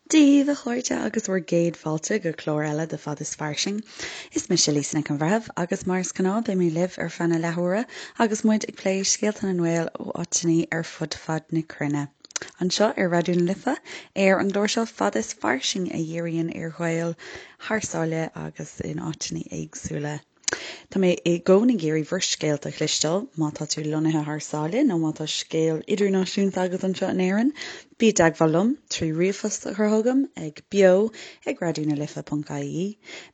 Dia daoibh, a chairde, agus bhur gcéad fáilte go clár eile de Fad is Fairsing. Is mise Lisa Nic an Bhreithimh agus mar is gnáth beidh mé libh ar feadh na leathuaire agus muid ag plé scéalta na nGael ó áiteanna ar fud fad na cruinne. Anseo ar Raidió na Life, ar an gclár seo Fad is Fairsing a dhíríonn ar Ghaeil thar sáile agus in áiteanna éagsúla. Tá mé i gcónaí ag iarraidh bhur scéalta a chloisteáil, má tá tú lonnaithe thar sáile nó má tá scéal idirnáisiúnta agat anseo in Éirinn, bí i dteagmháil liom trí ríomhphost a chur chugam ag beo ag raidionalife.ie,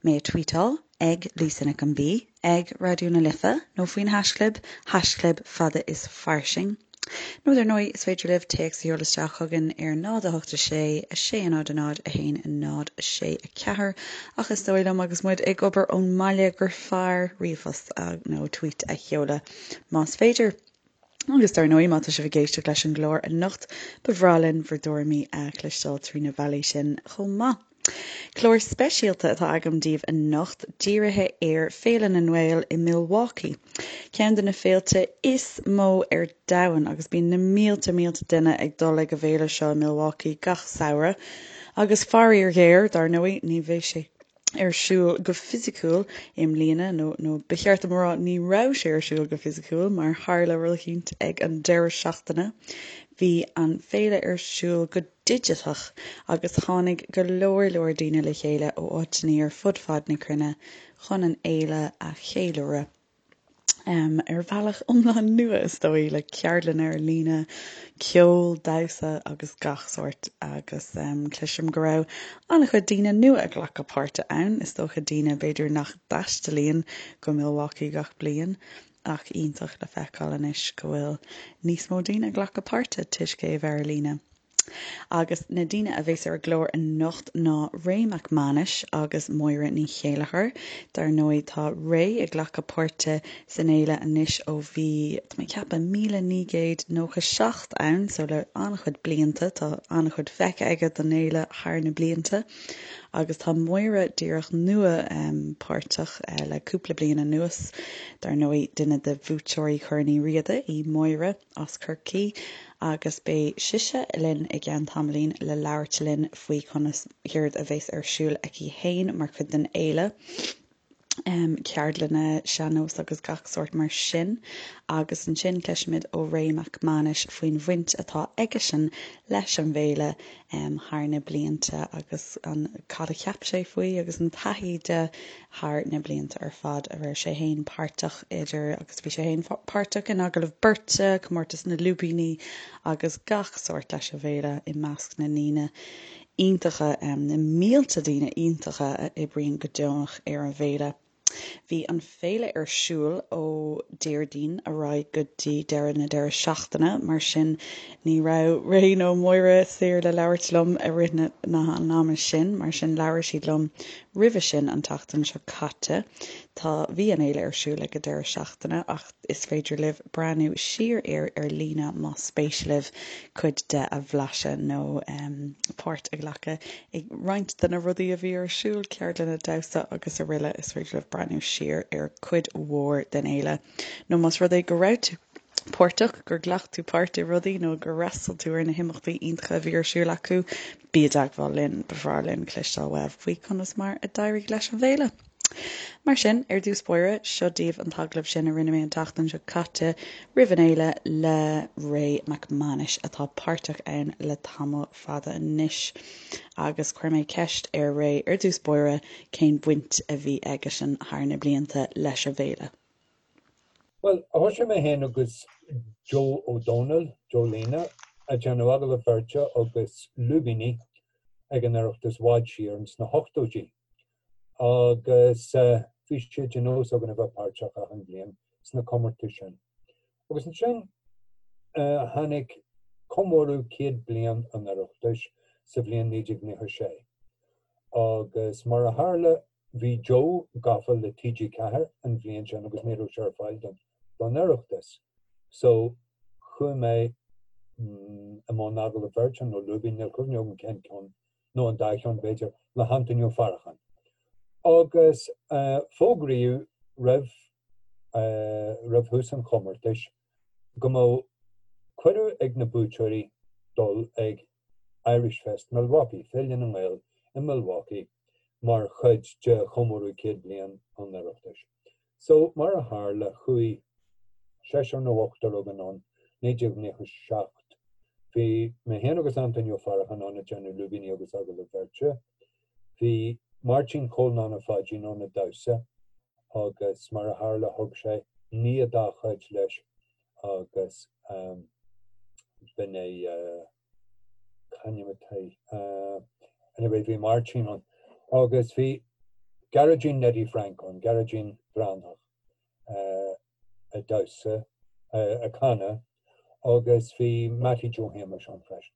mé a tweetáil ag Lisa Nic an B ag Raidió na Life nó faoin haischlib, haischlib fada is fairsing. Nó dar ndóigh, is féidir libh téacs a sheoladh isteach chugainn ar 0 8 6 6 0 0 1 0 6 4 ach is dóigh liom agus muid ag obair ón mbaile gur fearr ríomhphost nó tweet a sheoladh más féidir. Agus dar ndóigh, má tá sibh ag éisteacht leis an gclár anocht, ba bhreá linn bhur dtuairimí a chloisteáil trí na bealaí sin chomh maith. Clár speisialta atá agam daoibh anocht, dírithe ar Féile na nGael i Milwaukee, ceann de na féilte is mó ar domhan agus bíonn na mílte mílte duine ag dul ag an bhféile seo i Milwaukee gach samhradh. Agus faraor géar, dar ndóigh, ní bheidh sé ar siúl go fisiciúil i mbliana, nó nó ba cheart dom a rá ní raibh sé ar siúl go fisiciúil mar tharla rud eicínt ag an deireadh seachtaine. Bhí an féile ar siúl go digiteach agus tháinig go leor leor daoine le chéile ó áiteanna ar fud fad na cruinne chun an fhéile a cheiliúradh ar bhealach iomlán nua, is dóigh, le ceardlanna ar líne, ceol, damhsa agus gach sórt agus cloisim go raibh an-chuid daoine nua ag glacadh páirte ann, is dócha daoine b'fhéidir nach dtaistealaíonn go Milwaukee gach bliain ach iontach le feiceáil anois go bhfuil níos mó daoine ag glacadh páirte toisc é a bheith ar líne. Agus na daoine a bheas ar an gclár anocht ná Ray Mac Mánais agus Máire Ní Chéilleachair. Dar ndóigh tá Ray ag glacadh páirte san fhéile anois ó bhí, tá mé ag ceapadh, 1997 ann, so le an-chuid blianta, tá an-chuid feicthe aige den fhéile thar na blianta. Agus tá Máire díreach nua páirteach le cúpla bliain anuas. Dar ndóigh duine de bhuaiteoirí Chorn Uí Riada í Máire. as Corcaigh agus beidh sise linn i gceann tamaillín le labhairt linn faoi conas, céard a bheas ar siúl aici fhéin mar chuid den fhéile, ceardlanna sean-nós agus gach sórt mar sin. Agus ansin cloisfimid ó Ray Mac Mánais faoin bhaint atá aigesean leis an bhféile thar na blianta agus an cad a cheap sé faoi agus an taithí de thar na blianta ar fad a raibh sé fhéin páirteach idir agus bhí sé fhéin páirteach in agallamh beirte, comórtas na lúibíní agus gach sórt leis an bhféile i measc na ndaoine iontacha, na mílte daoine iontacha a oibríonn go deonach ar an bhféile. Bhí an féile ar siúl ó Déardaoin ar aghaidh go dtí deireadh na deireadh seachtaine, mar sin ní raibh Ray nó Máire saor le labhairt liom i rith na an ama sin, mar sin labhair siad liom roimhe sin an tseachtain seo caite. Tá, bhí an fhéile ar siúl ag an deireadh seachtaine ach is féidir libh breathnú siar air ar líne más spéis libh cuid de a bhlaiseadh nó páirt a ghlacadh i roinnt de na rudaí a bhí ar siúl, ceardlanna damhsa agus araile Is féidir libh breathnú siar ar cuid mhór den fhéile nó más rud é go raibh tú páirteach, gur ghlac tú páirt i rudaí nó gur fhreastail tú ar na himeachtaí iontacha a bhí ar siúl acu, bí i dteagmháil linn, ba bhreá linn cloisteáil uaibh faoi conas mar a d'éirigh leis an bhféile. Mar sin, ar dtús báire, seo daoibh an t-agallamh sin a rinne mé an tseachtain seo caite roimh an fhéile le Ray Mac Mánais atá páirteach ann le tamall fada anois. Agus chuir mé ceist ar Ray ar dtús báire cén bhaint a bhí aigesean thar na blianta leis an bhféile. Bhuel, thosaigh mé féin agus Joe Ó Dónaill, Joe Lena, ag déanamh agallamh beirte agus lúibíní ag an Oireachtas i bhfad siar ins na hochtóidí. Agus bhí sé de nós againn a bheith páirteach achan bhliain sna comórtais sin. Agus ansin tháinig comóradh 100 bliain an Oireachtais sa bhliain 1996. Agus mar a tharla bhí Joe gafa le TG4 an bhliain sin agus ní raibh sé ar fáil don don Oireachtas. So chuaigh mé i mbun agallamh beirte nó lúibín, níl cuimhne agam cén ceann nó an dá cheann b'fhéidir, le hAntaine Ó Faracháin. Agus fógraíodh roimh roimh thús an chomórtais go mbeadh cuireadh ag na buaiteoirí dul ag. Irish Fest Milwaukee, Féile na nGael i Milwaukee, mar chuid de chomóradh 100 bliain an Oireachtais. So, mar a tharla, chuaigh seisear nó ochtar againn ann, 1997. Bhí mé féin agus Antaine Ó Faracháin ann ag déanamh lúibíní agus agallamh beirte. Bhí Máirtín Chóil Nana Pháidín ann ag damhsa agus mar a tharla thug sé nia dá chuid leis agus b'in é c'ainm atá anyway bhí Máirtín ann agus bhí Gearóidín Neidí Frank ann, Gearóidín Breathnach ag damhsa, ag canadh agus bhí Mattie Joe Shéamais ann freisin.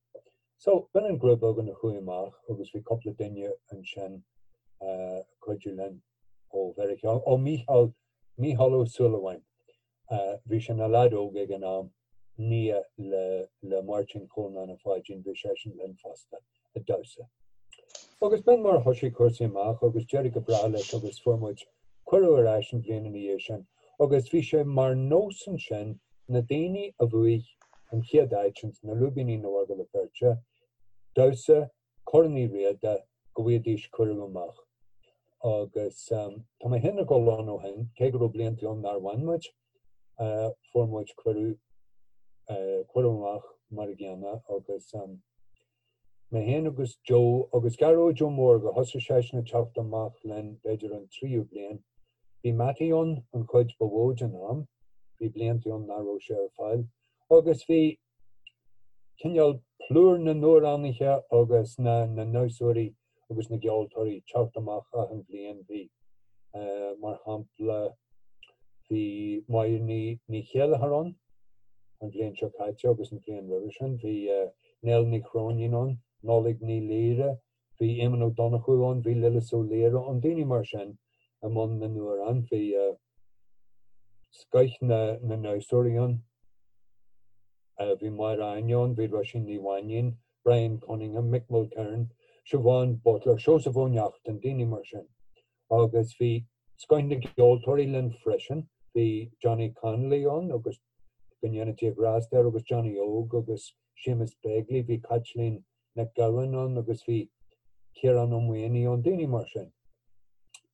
So, b'in an grúpa againn a chuaigh amach agus bhí cúpla duine ansin ag cuidiú linn ó Mheiriceá, ó Mícheál, Mícheál Ó Súilleabháin. Bhí sé ina leaid óg ag an am, nia le le Máirtín Chóil Nana Pháidín, bhí seisean linn fosta ag damhsa. Agus b'in mar a thosaigh cúrsaí amach agus d'éirigh go breá leis agus fuair muid cuireadh ar ais an bhliain ina dhiaidh sin agus bhí sé mar nós ansin na daoine a bhuaigh an chéad áit ins na lúibíní nó agallamh beirte, damhsa Corn Uí Riada go bhfaighidís cuireadh amach. Agus tá mé féin ag dul ann ó shin, cé go raibh blianta ann nár bhain muid, fuair muid cuireadh, cuireadh amach mar a gcéanna agus mé féin agus Joe agus Gearóid Ó Mórdha, thosaigh seisean ag teacht amach linn b'fhéidir an tríú bliain. Bhí Mattie ann an chuid ba mhó den am, bhí blianta ann nach raibh sé ar fáil agus bhí cineál plúr na n-amhránaithe agus na ndamhsóirí agus na gceoltóirí teacht amach achan bhliain. Bhí, mar shampla, bhí Máire Ní Chéilleachair ann an bhliain seo caite agus an bhliain roimhe sin. Bhí Nell Ní Chróinín ann, Nollaig Ní Laoire, bhí Éamonn Ó Donnchú ann, bhí Lillis Ó Laoire ann, daoine mar sin i mbun na n-amhrán. Bhí scoith na ndamhsóirí ann. Bhí Máire Áine ann, bhí Róisín Ní Mhainín, Brian Cunningham, Mick Mulcairn, Siobhán Butler, Seosamh Ó Neachtain, daoine mar sin. Agus bhí scoith na gceoltóirí linn freisin. Bhí Johnny Connolly ann agus go ndéana Dia grásta air agus Johnny Óg agus Séamus Begley, bhí Caitlín Nic Gabhann ann agus bhí Ciarán Ó Maonaigh ann, daoine mar sin.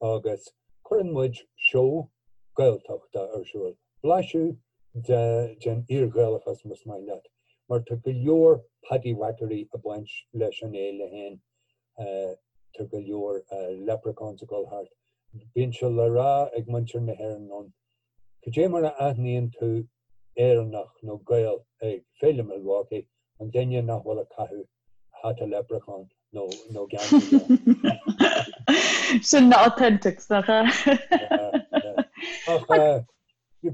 Agus cuireann muid seó Gaeltachta ar siúl, blaiseadh den fhíor-Ghaelachas más maith leat, mar tá go leor paddywhackery ag baint leis an fhéile féin, tá go leor leprechauns ag dul thart. Bíonn sé le rá ag muintir na hÉireann ann, cad é mar a aithníonn tú Éireannach nó Gael ag Féile Milwaukee, an duine nach bhfuil ag caitheamh hata leprechaun nó nó geansaí. Sin na authentics, nach ea? Ach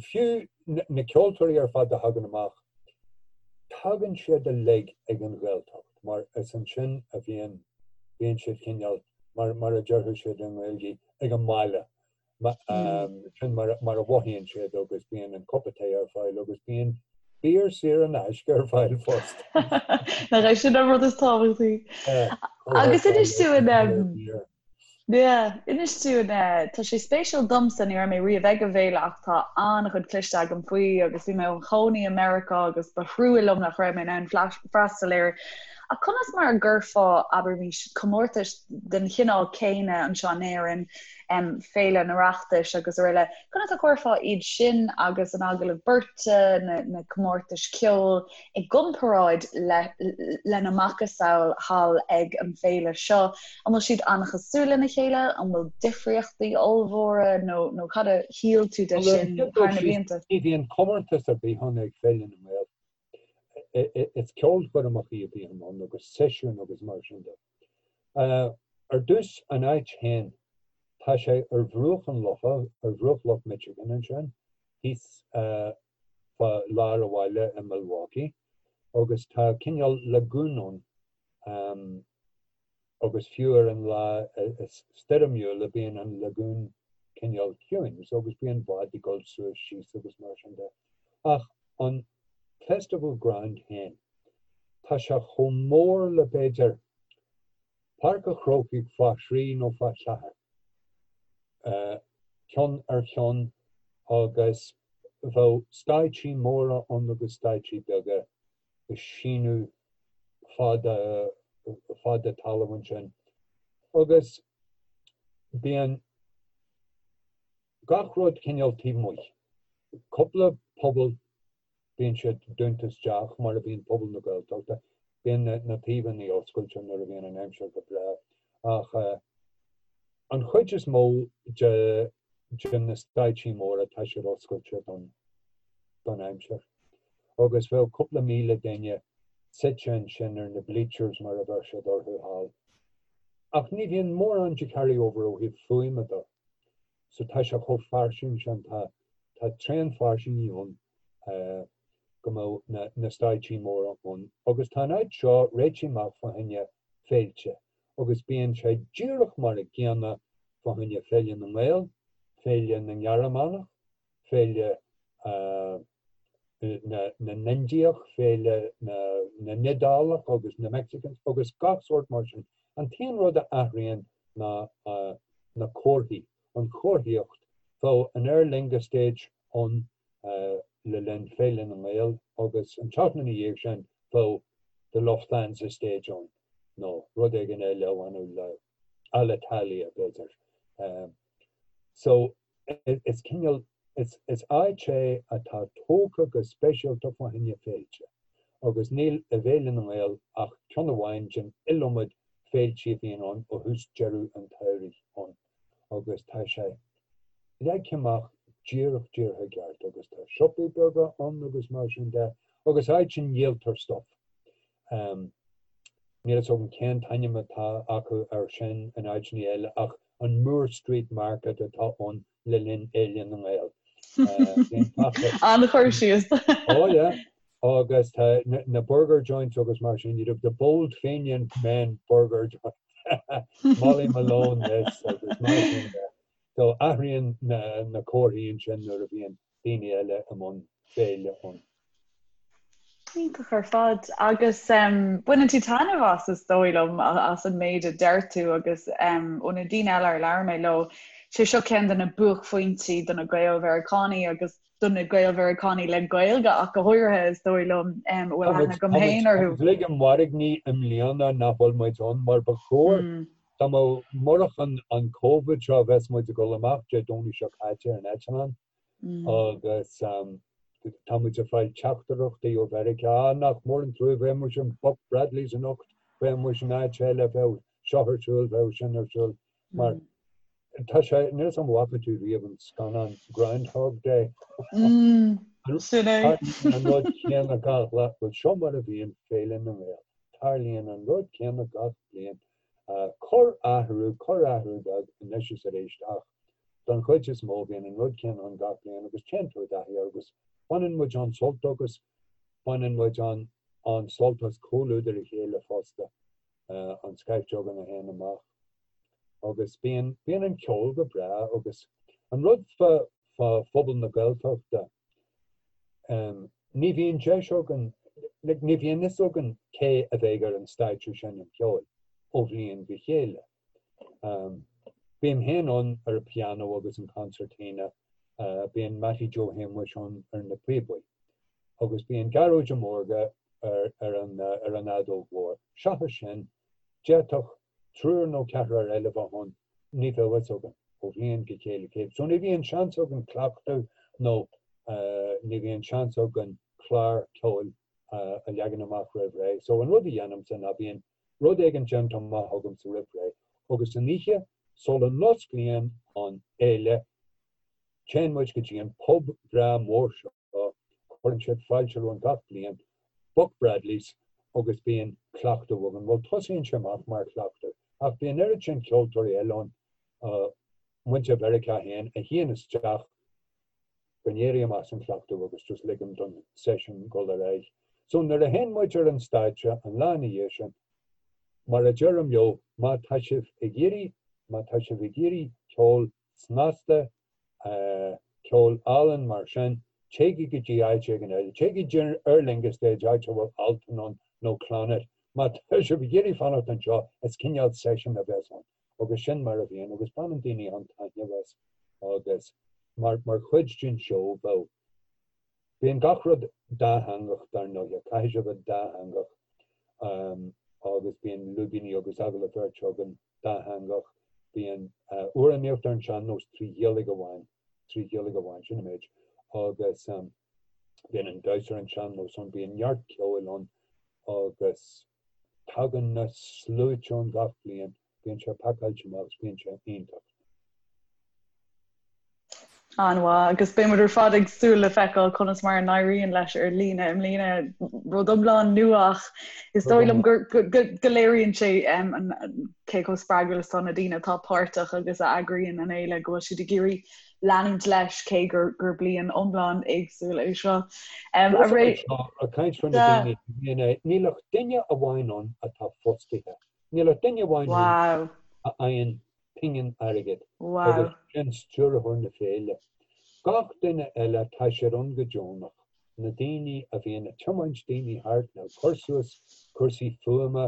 fiú na ceoltóirí ar fad a thagann amach, tagann siad uilig ag an Ghaeltacht mar is ansin a bhíonn bíonn siad cineál, mar mar a déarfadh siad i nGaeilge, ag an mbaile. Sin mar a mhothaíonn siad agus bíonn an cupa tae ar fáil agus bíonn beer saor in aisce ar fáil fosta. Nach é sin an rud is tábhachtaí. Agus inis dúinn inis dúinn tá sé spéisiúil domsa ní raibh mé riamh ag an bhféile ach tá an-chuid cloiste agam faoi agus bhí mé i mo chónaí i Meiriceá agus ba thrua liom nach raibh mé in ann freastal air. Ach conas mar a gcuirfeá, abraimis, comórtais den chineál céanna anseo in Éirinn Féile an Oireachtais agus araile. Conas a chuirfeá iad sin agus an agallamh beirte, na comórtais ceoil, i gcomparáid lena macasamhail thall ag an bhféile seo? An bhfuil siad an-chosúil lena chéile? An bhfuil difríochtaí ollmhóra nó cad a shíl tú de sin thar na blianta? Ní bhíonn comórtas ar bith ann ag Féile na nGael. Is ceolchoirmeacha a bhíonn ann agus seisiúin agus mar sin de. Ar dtús, an áit féin, tá sé ar bhruach an locha, ar bhruach Loch Michigan ansin, thíos fá lár an bhaile i Milwaukee, agus tá cineál lagún ann, agus fiú ar an lá is stoirmiúla bíonn an lagún cineál ciúin, so agus bíonn báid ag dul suas síos agus mar sin de. Ach an Festival Ground féin, tá sé chomh mór le b'fhéidir Páirc an Chrócaigh fá thrí nó fá cheathair, ceann ar cheann agus bheadh stáitsí móra ann agus stáitsí beaga ag síneadh fada. fad de talamh ansin agus bíonn gach rud cineál taobh amuigh. Cúpla puball bíonn siad dúnta isteach mar a bhíonn puball na Gaeltachta. Bíonn na taobhanna oscailte nuair a bhíonn an aimsir go breá ach an chuid is mó de de na stáitsí móra tá siad oscailte don don aimsir. Agus bheadh cúpla 1,000 duine suite ansin ar na bleachers mar a bheir siad orthu thall. Ach ní bhíonn mórán de carry over ó thaobh fuaime de. So tá sé chomh fairsing sin, tá tá tréan fairsinge ann go mbeadh na na stáitsí móra ann. Agus tá an áit seo réitithe amach fá choinne féilte agus bíonn sé díreach mar a gcéanna fá choinne Féile na nGael, Féile na nGearmánach, Féile na na nIndiach, Féile na na nIodálach agus na Mexicans agus gach sórt mar sin. An t-aon rud a athraíonn ná na comharthaí, an chomharthaíocht. Bheadh an Aer Lingus Stage ann le linn Féile na nGael agus an tseachtain ina dhiaidh sin bheadh The Lufthansa Stage ann nó rud éigin eile a bhaineadh le Alitalia b'fhéidir. So is cineál, is áit é atá tógtha go speisialta fá choinne féilte agus níl i bhFéile na nGael ach ceann amháin den iliomad féiltí a bhíonn ann ó thús deireadh an tsamhraidh ann agus tá sé leagtha amach díreach díreach i gceart agus tá siopaí beaga ann agus mar sin de agus áit a ndíoltar stuff. Níl fhios agam cén t-ainm atá acu air sin in áiteanna eile ach an Moore Street Market atá ann le linn Fhéile na nGael. An-chur síos. Oh yeah. Agus tá na burger joints agus mar sin, you'd have the bold Fenian men burger joint. Molly Malone this agus mar sin de. So athraíonn na comharthaí ansin nuair a bhíonn daoine eile i mbun féile ann. Iontach ar fad. Agus baineann tú taitneamh as, is dóigh liom, as an méid a deir tú agus ó na daoine eile ar labhair mé leo, sé seo ceann de na buaicphointí do na Gael-Mheiriceánaigh agus do na Gael-Mheiriceánaigh le Gaeilge ach go háirithe, is dóigh liom, a bhfuil aithne agam féin orthu. Tá muid ag mairgní i mbliana nach bhfuil muid ann mar ba chóir. Dá mbeadh, murach an Covid seo, bheadh muid ag dul amach Dé Domhnaigh seo caite ar an eitleán. Agus tá muid ag fáil teachtaireachtaí ó Mheiriceá, ah, nach mór an trua, bheadh muid in Buck Bradley's anocht, bheadh muid in áit eile, bheadh seo ar siúl, bheadh sin ar siúl. Mar tá sé, níl 'fhios a'm an bhfaca tú riamh an scannán Groundhog Day. Sin é. Tarlaíonn an rud céanna gach lá. Bhuel, seo mar a bhíonn Féile na nGael. Tarlaíonn an rud céanna gach bliain. Corr-athrú, corr-athrú beag anois is arís ach Don chuid is mó bíonn an rud céanna ann gach bliain agus téann tú i dtaithí air agus baineann muid an-sult agus baineann muid an-sult as comhluadar a chéile fosta an scaifte againn a théann amach agus bíonn, bíonn an ceol go breá agus an rud fá, fá phobal na Gaeltachta ní bhíonn deis againn, like ní bhíonn fhios againn cé a bheidh ar an stáitse ag seinm ceoil ó bhliain go chéile. Bím féin ann ar an pianó agus an concertina, bíonn Mattie Joe Shéamuis ann ar na píobaí, agus bíonn Gearóid Ó Mórdha ar an fheadóg mhór. Seachas sin, d'fhéadfadh triúr nó ceathrar eile bheith ann, ní bheadh fhios againn ó bhliain go chéile cé. So ní bhíonn seans againn cleachtadh nó ní bhíonn seans againn clár ceoil a leagan amach roimh ré. So an rud a dhéanaimse ná bíonn rud éigin déanta amach agamsa roimh ré, agus an oíche sula n-osclaíonn an fhéile, téann muid go dtí an pub breá mór seo, cuireann siad fáilte romhainn gach bliain, Buck Bradley's, agus bíonn cleachtadh againn. Bhuel, tosaíonn sé amach mar chleachtadh, ach bíonn oiread sin ceoltóirí eile ann, muintir Mheiriceá féin, a shuíonn isteach go n-éirím as an chleachtadh agus just ligim don session dul ar aghaidh. So nuair a théann muid ar an stáitse an lá ina dhiaidh sin, mar a deirim leo, má tá sibh ag iarraidh, má tá sibh ag iarraidh ceol snasta, ceol álainn mar sin, téigí go dtí áit éigin eile, téigí go dtí Aer Lingus Stage, áit a bhfuil Altan ann nó Clannad. Má tá sibh ag iarraidh fanacht anseo, is cineál session a bheas ann. Agus sin mar a bhíonn agus baineann daoine an-taitneamh as agus mar mar chuid den seó bheadh bíonn gach rud dátheangach dar ndóighe, caithfidh sé bheith dátheangach. Agus bíonn lúibíní agus agallamh beirte againn dátheangach. Bíonn amhránaíocht ar an sean-nós 3 Ghaeilge amháin, 3 Ghaeilge amháin, sin an méid. Agus bíonn an damhsa ar an sean-nós ann, bíonn neart ceoil ann agus tagann na sluaite ann gach bliain. Bíonn sé pacáilte amach agus bíonn sé iontach. An-mhaith, agus beidh muid ar fad ag súil le feiceáil conas mar a n-éiríonn leis ar líne i mbliana, rud iomlán nua ach is dóigh liom go léiríonn sé cé chomh spreagúil is atá na daoine atá páirteach agus a eagraíonn an fhéile, go bhfuil siad ag iarraidh leanúint leis cé gur bliain iomlán éagsúil é seo. Ag caint faoi na daoine, níl ach duine amháin ann atá fostaithe. Níl ach duine amháin ann a fhaigheann pingin airgid agus sin stiúrthóir na féile. Gach duine eile tá siad ann go deonach, na daoine a bhíonn ag tiomáint daoine thart nó ag cur suas cúrsaí fuaime,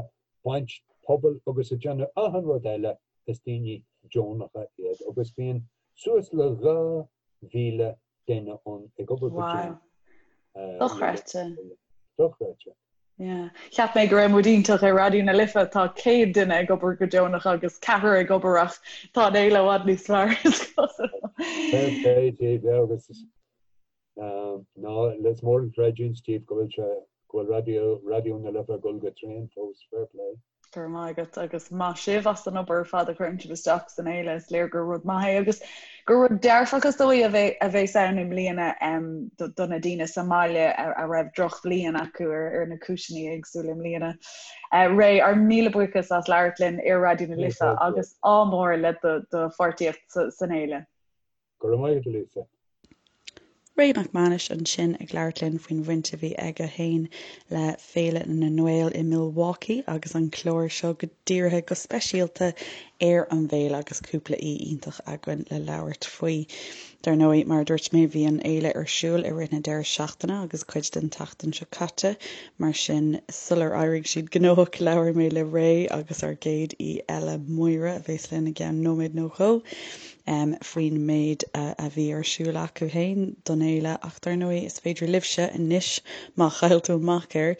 baint puball agus ag déanamh achan rud eile, is daoine deonacha iad agus bíonn suas le 2,000 duine ann ag obair go deonach. Dochreidte. Dochreidte. Yeah. Cheap mé go raibh muid iontach ar Raidió na Life, tá 100 duine ag obair go deonach agus ceathrar ag obair ach tá an fhéile i bhfad níos fearr is cosúil. Fair play daoibh, yeah, agus ná is mór an chreidiúint daoibh go bhfuil sé go bhfuil Raidió Raidió na Life ag dul go tréan fós, fair play. Go raibh maith agat agus maith sibh as an obair ar fad a chuireann sibh isteach san fhéile, is léir gur rud maith é agus gur rud dearfach is dóigh a bheas ann i mbliana do na daoine sa mbaile a raibh drochbhliain acu ar na cúiseanna éagsúla i mbliana. Ray, ár míle buíochas as labhairt linn ar Raidió na Life agus ádh mór le do pháirtíocht san fhéile. Go raibh maith agat, a Lisa. Ray Mac Mánais ansin ag labhairt linn faoin bhaint a bhí aige féin le Féile na nGael i Milwaukee agus an clár seo go dírithe go speisialta ar an bhféile agus cúpla aoi iontach againn le labhairt faoi. Dar ndóigh, mar a dúirt mé, bhí an fhéile ar siúl i rith na deireadh seachtaine agus cuid den tseachtain seo caite, mar sin sular éirigh siad gnóthach labhair mé le Ray agus ár gcéad aoi eile, Máire, a bheas linn i gceann nóiméad nó dhó. faoin méid a bhí ar siúl acu féin don fhéile ach dar ndóigh is féidir libhse anois, má chaill tú amach air,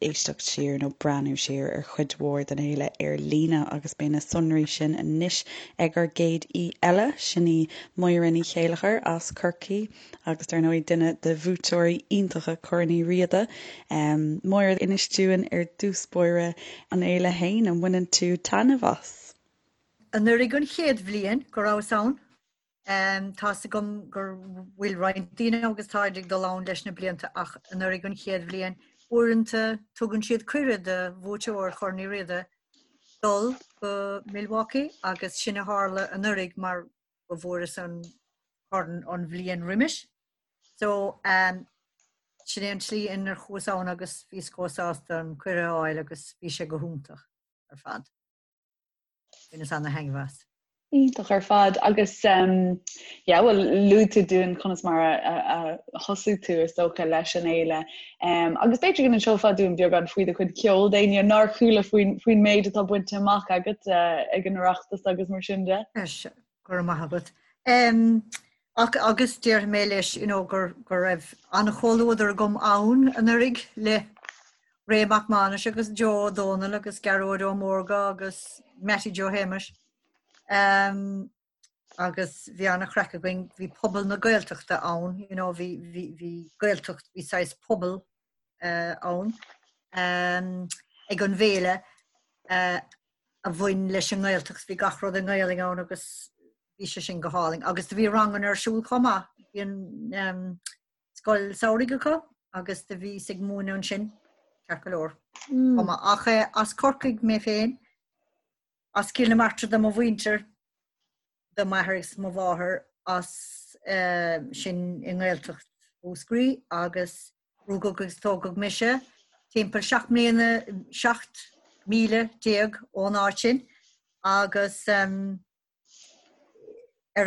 éisteacht siar nó breathnú siar ar chuid mhór den fhéile ar líne agus beidh na sonraí sin anois ag ár gcéad aoi eile, sin í Máire Ní Chéilleachair as Corcaigh agus dar ndóigh duine de bhuaiteoirí iontacha Chorn Uí Riada. Máire, inis dúinn ar dtús báire an fhéile féin, an mbaineann tú taitneamh as? Anuraidh an chéad bhliain go rabhas ann. Tá's agam go bhfuil roinnt daoine agus táid ag dul ann leis na blianta ach anuraidh an chéad bhliain, uaireanta tugann siad cuireadh do bhuaiteoir Chorn Uí Riada dul go Milwaukee agus sin a tharla anuraidh mar go bhfuaireas an corn an bhliain roimis. So um, sin é an tslí inar chuas ann agus bhíos chomh sásta an cuireadh a fháil agus bhí sé go hiontach ar fad. Bhaineas ana-thaitneamh as. Iontach ar fad agus yeah bhuel luaigh tú dúinn conas mar a thosaigh tú is dócha leis an fhéile agus b'fhéidir go n-inseofá dúinn beagán faoi do chuid ceoil d'éinne nár chuala faoin faoin méid atá bainte amach agat ag an Oireachtas agus mar sin de. Go raibh maith agat. Um, ach agus déarfaidh mé leis you know, gur, go raibh an-chomhluadar agam ann anuraidh le Ray Mac Mánais agus Joe Ó Dónaill agus Gearóid Ó Mórdha agus Mattie Joe Shéamais. Um, agus bhí an-chraic againn, bhí pobal na Gaeltachta ann, you know, bhí, bhí, bhí Gaeltacht, bhí saghas pobal uh, ann um, ag an bhféile uh, a bhain leis an nGaeltacht, bhí gach rud i nGaelainn ann agus bhí sé sin go hálainn. Agus do bhí ranganna ar siúl chomh maith, bhí an um, scoil samhraidh acu agus do bhíos ag múineadh ansin, ceart go leor. Mm. Chomh maith. Ach eh, as Corcaigh mé féin, as Cill na Martra do mo mhuintir, do m'athair agus mo mháthair as sin i nGaeltacht Mhúscraí agus rugadh agus tógadh mise timpeall 17 mbliana, 17 míle ón áit sin agus ar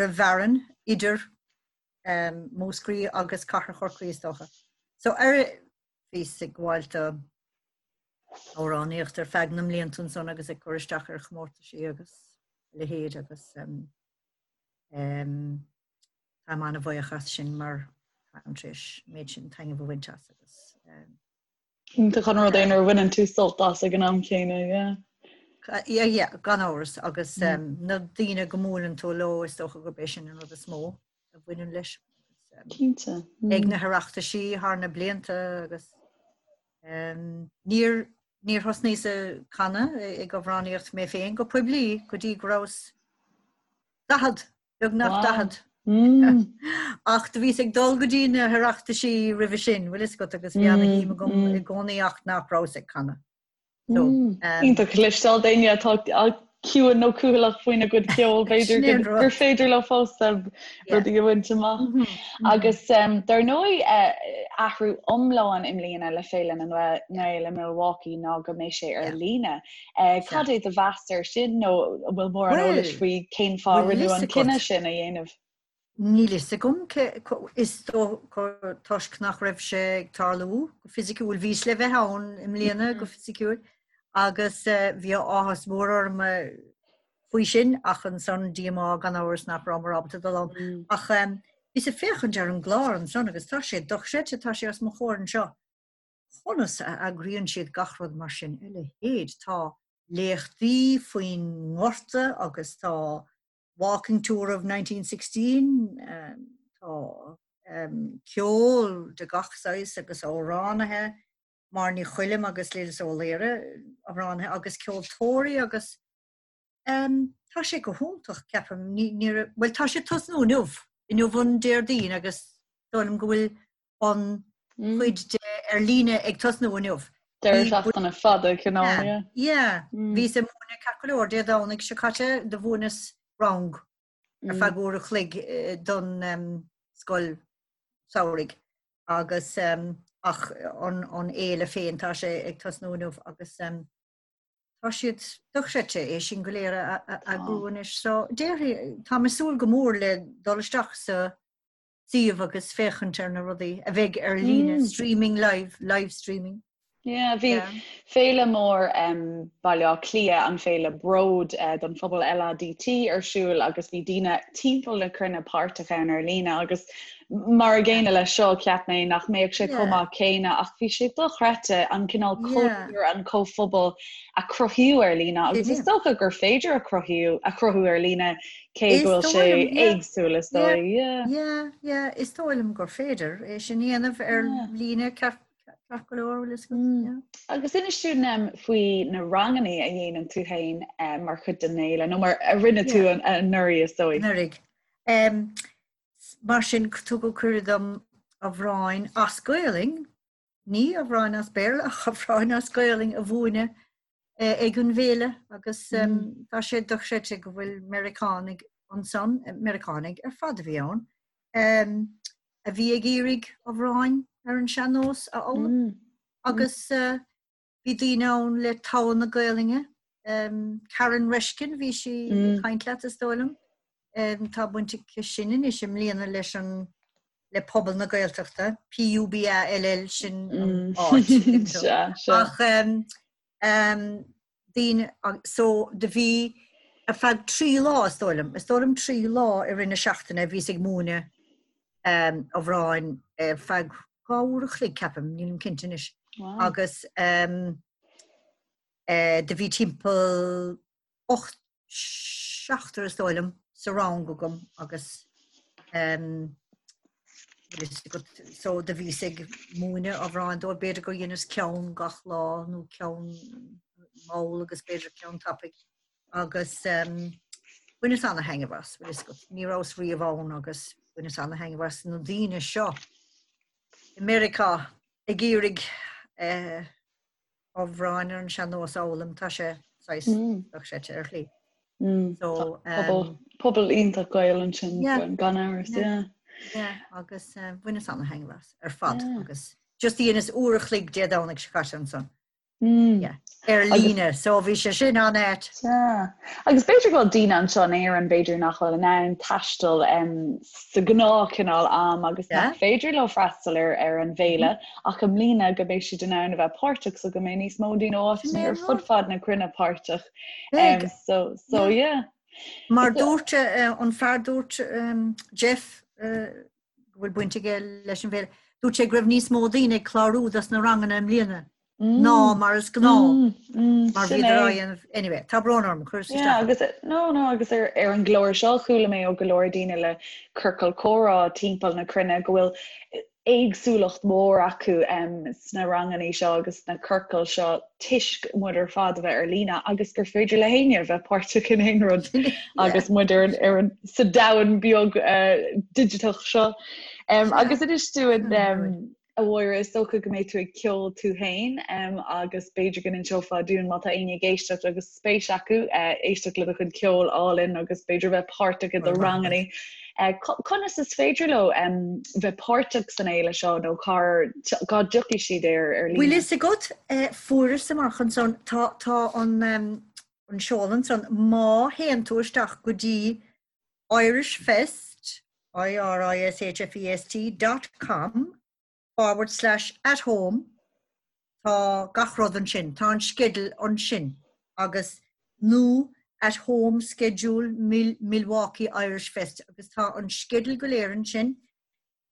an bhfearann idir Múscraí agus Cathair Chorcaí is dócha. So ar bhíos ag gabháil do amhránaíocht ar feadh na mblianta ansan agus ag cur isteach ar chomórtaisí agus a leithéid agus táim an-bhuíoch as sin mar táim tar éis méid sin taitneamh a bhaint as agus. Iontach an rud é nuair a bhaineann tú sult as ag an am céanna, yeah. Yeah, yeah, gan amhras agus na daoine go mbuaileann tú leo is dócha gurb é sin an rud is mó a bhaineann leis. Cinnte. Ag na hOireachtaisí thar na blianta agus níor níor thosnaíos ag canadh ag amhránaíocht mé féin go poiblí go dtí go rabhas 40 beagnach 40. Ach do bhíos ag dul go dtí na hOireachtaisí roimhe sin, bhfuil fhios agat, agus bhí ana-shuim agam i gcónaí ach nach rabhas ag canadh. So, Iontach cloisteáil d'éinne atá ciúin nó cúthaileach faoina gcuid ceoil, b'fhéidir gur féidir leo fós rudaí a bhaint amach. Agus dar ndóigh athrú iomlán i mbliana le Féile na nGael i Milwaukee ná go mbeidh sé ar líne. Cad é do mheas air sin nó an bhfuil mórán eolais faoi cén fáth a rinneadh an cinneadh sin a dhéanamh? Níl fhios agam cé, is dócha toisc nach raibh sé ag tarlú go fisiciúil. Bhíos le bheith ann i mbliana go fisiciúil agus bhí áthas mór orm faoi sin ach ansan díomá gan amhras nach rabhamar ábalta dul ann. Ach bhíos ag féachaint ar an gclár ansan agus tá sé dochreidte, tá sé os mo chomhair anseo. Conas a eagraíonn siad gach rud mar sin? A leithéid! Tá léachtaí faoin ngorta agus tá Walking Tour of 1916, tá ceol de gach saghas agus amhránaithe, Máire Ní Choilm agus Lillis Ó Laoire, amhránaithe agus ceoltóirí agus tá sé go hiontach, ceapaim. Bhuel, tá sé ag tosnú inniu, inniu an Déardaoin agus dóigh liom go bhfuil an chuid de ar líne ag tosnú inniu. Deireadh seachtaine fada cineál, yeah. Yeah, bhíos ag múineadh ceart go leor Dé Domhnaigh seo caite do mhúineas rang ar feadh uair a chloig don scoil samhraidh agus ach an fhéile féin tá sé ag tosnú inniu agus tá siad dochreidte é sin go léir a eagrú anois. So déarfaidh, táim ag súil go mór le dul isteach sa suíomh agus féachaint ar na rudaí a bheidh ar líne, streaming live, live streaming. Yeah, bhí féile mór um, Baile Átha Cliath, an féile Bród uh, don phobal LADT ar siúl agus bhí daoine timpeall na cruinne páirteach ann ar líne agus mar an gcéanna leis seo cheap mé nach mbeadh sé chomh maith céanna ach bhí sé dochreidte an cineál cultúr an comhphobal a cruthaíodh ar líne agus is dócha gur féidir a chruthú a chruthú ar líne Cé go bhfuil sé éagsúil is dóigh. Yeah, yeah, yeah, is dóigh liom gur féidir é sin a dhéanamh ar líne ceart go leor bhfuil fhios agat. Agus inis dúinn faoi na ranganna a dhéanann tú féin mar chuid den fhéile nó mar a rinne tú anuraidh is dóigh. Anuraidh. Mar sin tugadh cuireadh dom amhráin as Gaolainn ní amhráin as Béarla ach amhráin as Gaolainn a mhúineadh ag an bhféile agus tá sé dochreidte go bhfuil Meiriceánaigh ansan, Meiriceánaigh ar fad a bhí ann, a bhí ag iarraidh amhráin ar an sean-nós a fhoghlaim agus bhí daoine ann le togha na Gaolainne. Karen Reshkin, bhí sí ag caint leat is dóigh liom. Tá baint aici sin anois i mbliana leis an le pobal na Gaeltachta, P-U-B-A-L-L sin an áit. Ach daoine so do bhí ar feadh 3 lá is dóigh liom, is dóigh liom 3 lá i rith na seachtaine bhíos ag múineadh amhráin ar feadh 2 uair a chloig ceapaim, nílim cinnte anois. Agus do bhí timpeall 8, seachtar is dóigh liom sa rang agam agus so do bhíos ag múineadh amhráin dóibh, b'fhéidir gur dheineas ceann gach lá nó ceann mall agus b'fhéidir ceann tapaidh agus bhaineas ana-thaitneamh as, bhfuil fhios agat, ní rabhas riamh ann agus bhaineas ana-thaitneamh as na daoine seo i Meiriceá ag iarraidh eh, amhráin ar an sean-nós a fhoghlaim, tá sé saghas dochreidte ar shlí. So, um, pobal iontach Gael ansin gan amhras, yeah. Yeah, agus uh, bhaineas ana-thaitneamh as ar fad agus just dheineas uair a chloig Dé Domhnaigh seo caite ansan. Mm. Yeah. Ar líne, so bhí sé sin an-ait. Yeah. Agus b'fhéidir go bhfuil daoine anseo in Éirinn b'fhéidir nach bhfuil in ann taisteal um, sa ghnáthchineál am agus nach féidir leo freastal ar ar an bhféile ach i mbliana go mbeidh siad in ann a bheith páirteach so go mbeidh níos mó daoine ó áiteanna ar fud fad na cruinne páirteach. Um, so so yeah. Mar dúirt uh, an fear dúirt um, Jeff uh, go bhfuil baint aige leis an bhféile, dúirt sé go raibh níos mó daoine ag clárú dos na ranganna i mbliana. Ná mar is gnáth mar bhíodar á dhéanamh anyway, tá brón orm, chuireas isteach. Agus no no agus ar ar an gclár seo chuala mé ó go leor daoine le ciorcal comhrá timpeall na cruinne go bhfuil éagsúlacht mhór acu sna ranganna seo agus sna ciorcail seo toisc muid ar fad a bheith ar líne agus gur féidir le héinne a bheith páirteach in aon rud agus muid ar ar an sa domhan beag uh, digiteach seo. Um, agus inis dúinn um, A Mháire, is dócha go mbeidh tú ag ceol tú féin agus b'fhéidir go n-inseofá dúinn má tá éinne ag éisteacht agus spéis acu éisteacht le do chuid ceoil álainn agus b'fhéidir bheith páirteach i do ranganna. Conas is féidir leo bheith páirteach san fhéile seo nó cá cá dtiocfaidh siad air ar líne? Bhfuil fhios agat, fuaireas amach ansan, tá tá an an seoladh ansan, má théann tú isteach go dtí Irish Fest, I-R-I-S-H-F-E-S-T, dot com forward slash at home tá gach rud ansin, tá an sceideal ansin agus nó at home schedule Milwaukee Irish Fest agus tá an sceideal go léir ansin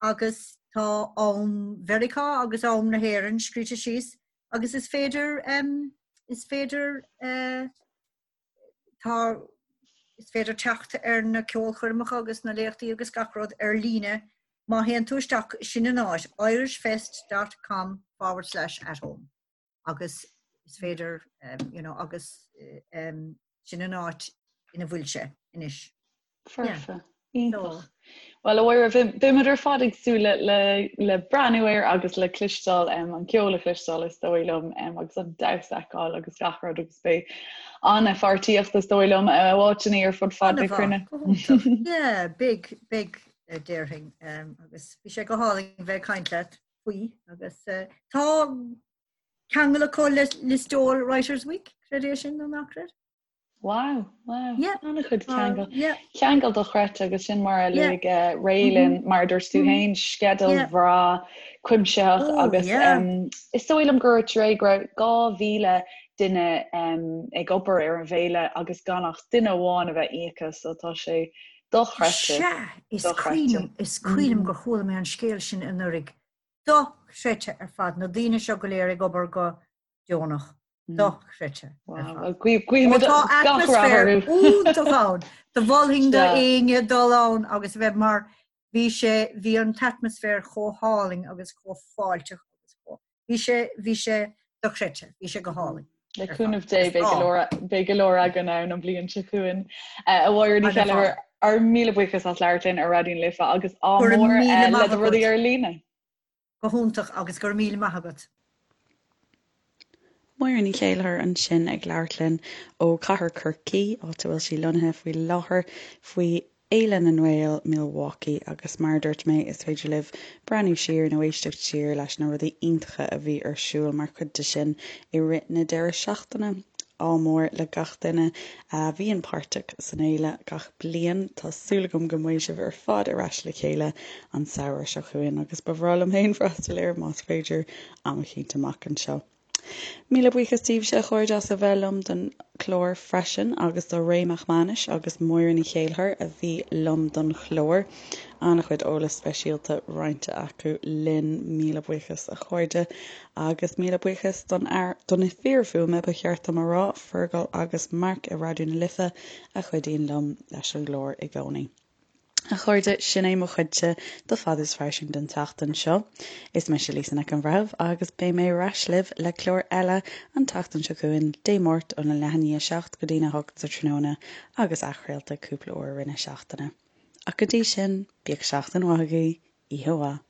agus tá am Mheiriceá agus am na hÉireann scríte síos agus is féidir is féidir eh, Tá, is féidir teacht ar na ceolchoirmeacha agus na léachtaí agus gach rud ar líne má théann tú isteach, sin an áit, irishfest dot com forward slash at home agus is féidir, you know, agus sin an áit ina bhfuil sé anois. Foirfe. Iontach. Bhuel, a Mháire, beimid ar fad ag súil le breathnú air agus le cloisteáil, an ceol a chloisteáil is dóigh liom, agus an damhsa a fheiceáil agus gach rud agus beidh an-pháirtíocht is dóigh liom ó áiteanna ar fud fad na cruinne. Yeah, beidh, beidh, déarfainn, agus bhí sé go hálainn bheith ag caint leat faoi agus tá ceangal acu le Listowel Writers' Week, creid é sin nó ná creid? Wow, wow. Yeah. An-chuid ceangal. Yeah. Ceangal dochreidte agus sin mar a luaigh yeah. uh, Ray linn mm -hmm. mar dúirt tú féin sceideal yeah. bhreá cuimsitheach oh, agus yeah. um, is dóigh liom gur dúirt Ray go raibh 2000 duine um, ag obair ar an bhféile agus gan ach duine amháin a bheith íoctha so tá sé dochreidte. Sea, is cuimhin is cuimhin liom mm. gur chuala mé an scéal sin anuraidh. Dochreidte ar fad na daoine seo go léir ag obair go deonach. Dochreidte. Guímid Tá atmaisféar iontach ann. Do mholfainn do éinne dul ann agus a bheith mar bhí sé bhí an t-atmaisféar chomh hálainn agus chomh fáilteach agus chomh bhí sé bhí sé dochreidte, bhí sé go hálainn. Le cúnamh Dé beidh go leor beidh go leor againn ann an bhliain seo chugainn. A Mháire Ní Cheilleachair, ár míle buíochas as labhairt linn ar Raidió na Life agus ádh mór le do rudaí ar líne. Go hiontach agus go raibh míle maith agat. Máire Ní Chéilleachair ansin ag labhairt linn ó Chathair Chorcaí, áit a bhfuil sí lonnaithe faoi láthair, faoi Fhéile na nGael Milwaukee agus mar a dúirt mé is féidir libh breathnú siar nó éisteacht siar leis na rudaí iontacha a bhí ar siúl mar chuid de sin i rith na deireadh seachtaine. Ádh mór le gach duine a bhíonn páirteach san fhéile gach bliain. Tá súil agam go mbeidh sibh ar fad ar ais le chéile an samhradh seo chugainn agus ba bhreá liom féin freastal air más féidir am eicínt amach anseo. Míle buíochas daoibhse a chairde as a bheith liom don chlár freisin agus do Ray Mac Mánais agus Máire Ní Chéilleachair a bhí liom don chlár. An-chuid eolas speisialta roinnte acu linn. Míle buíochas a chairde. Agus míle buíochas don fhear, do na fir fuaime ba cheart dom a rá, Fergal agus Mark i Raidió na Life a chuidíonn liom leis an gclár i gcónaí. A chairde, sin é mo chuidse de Fad is Fairsing don tseachtain seo. Is mise Lisa Nic an Bhreithimh agus beidh mé ar ais libh le clár eile an tseachtain seo chugainn, Dé Máirt óna leath i ndiaidh a 7 go dtína 8 sa tráthnóna agus athchraolta cúpla uair i rith na seachtaine. Ach go dtí sin, bíodh seachtain mhaith agaibh, oíche mhaith.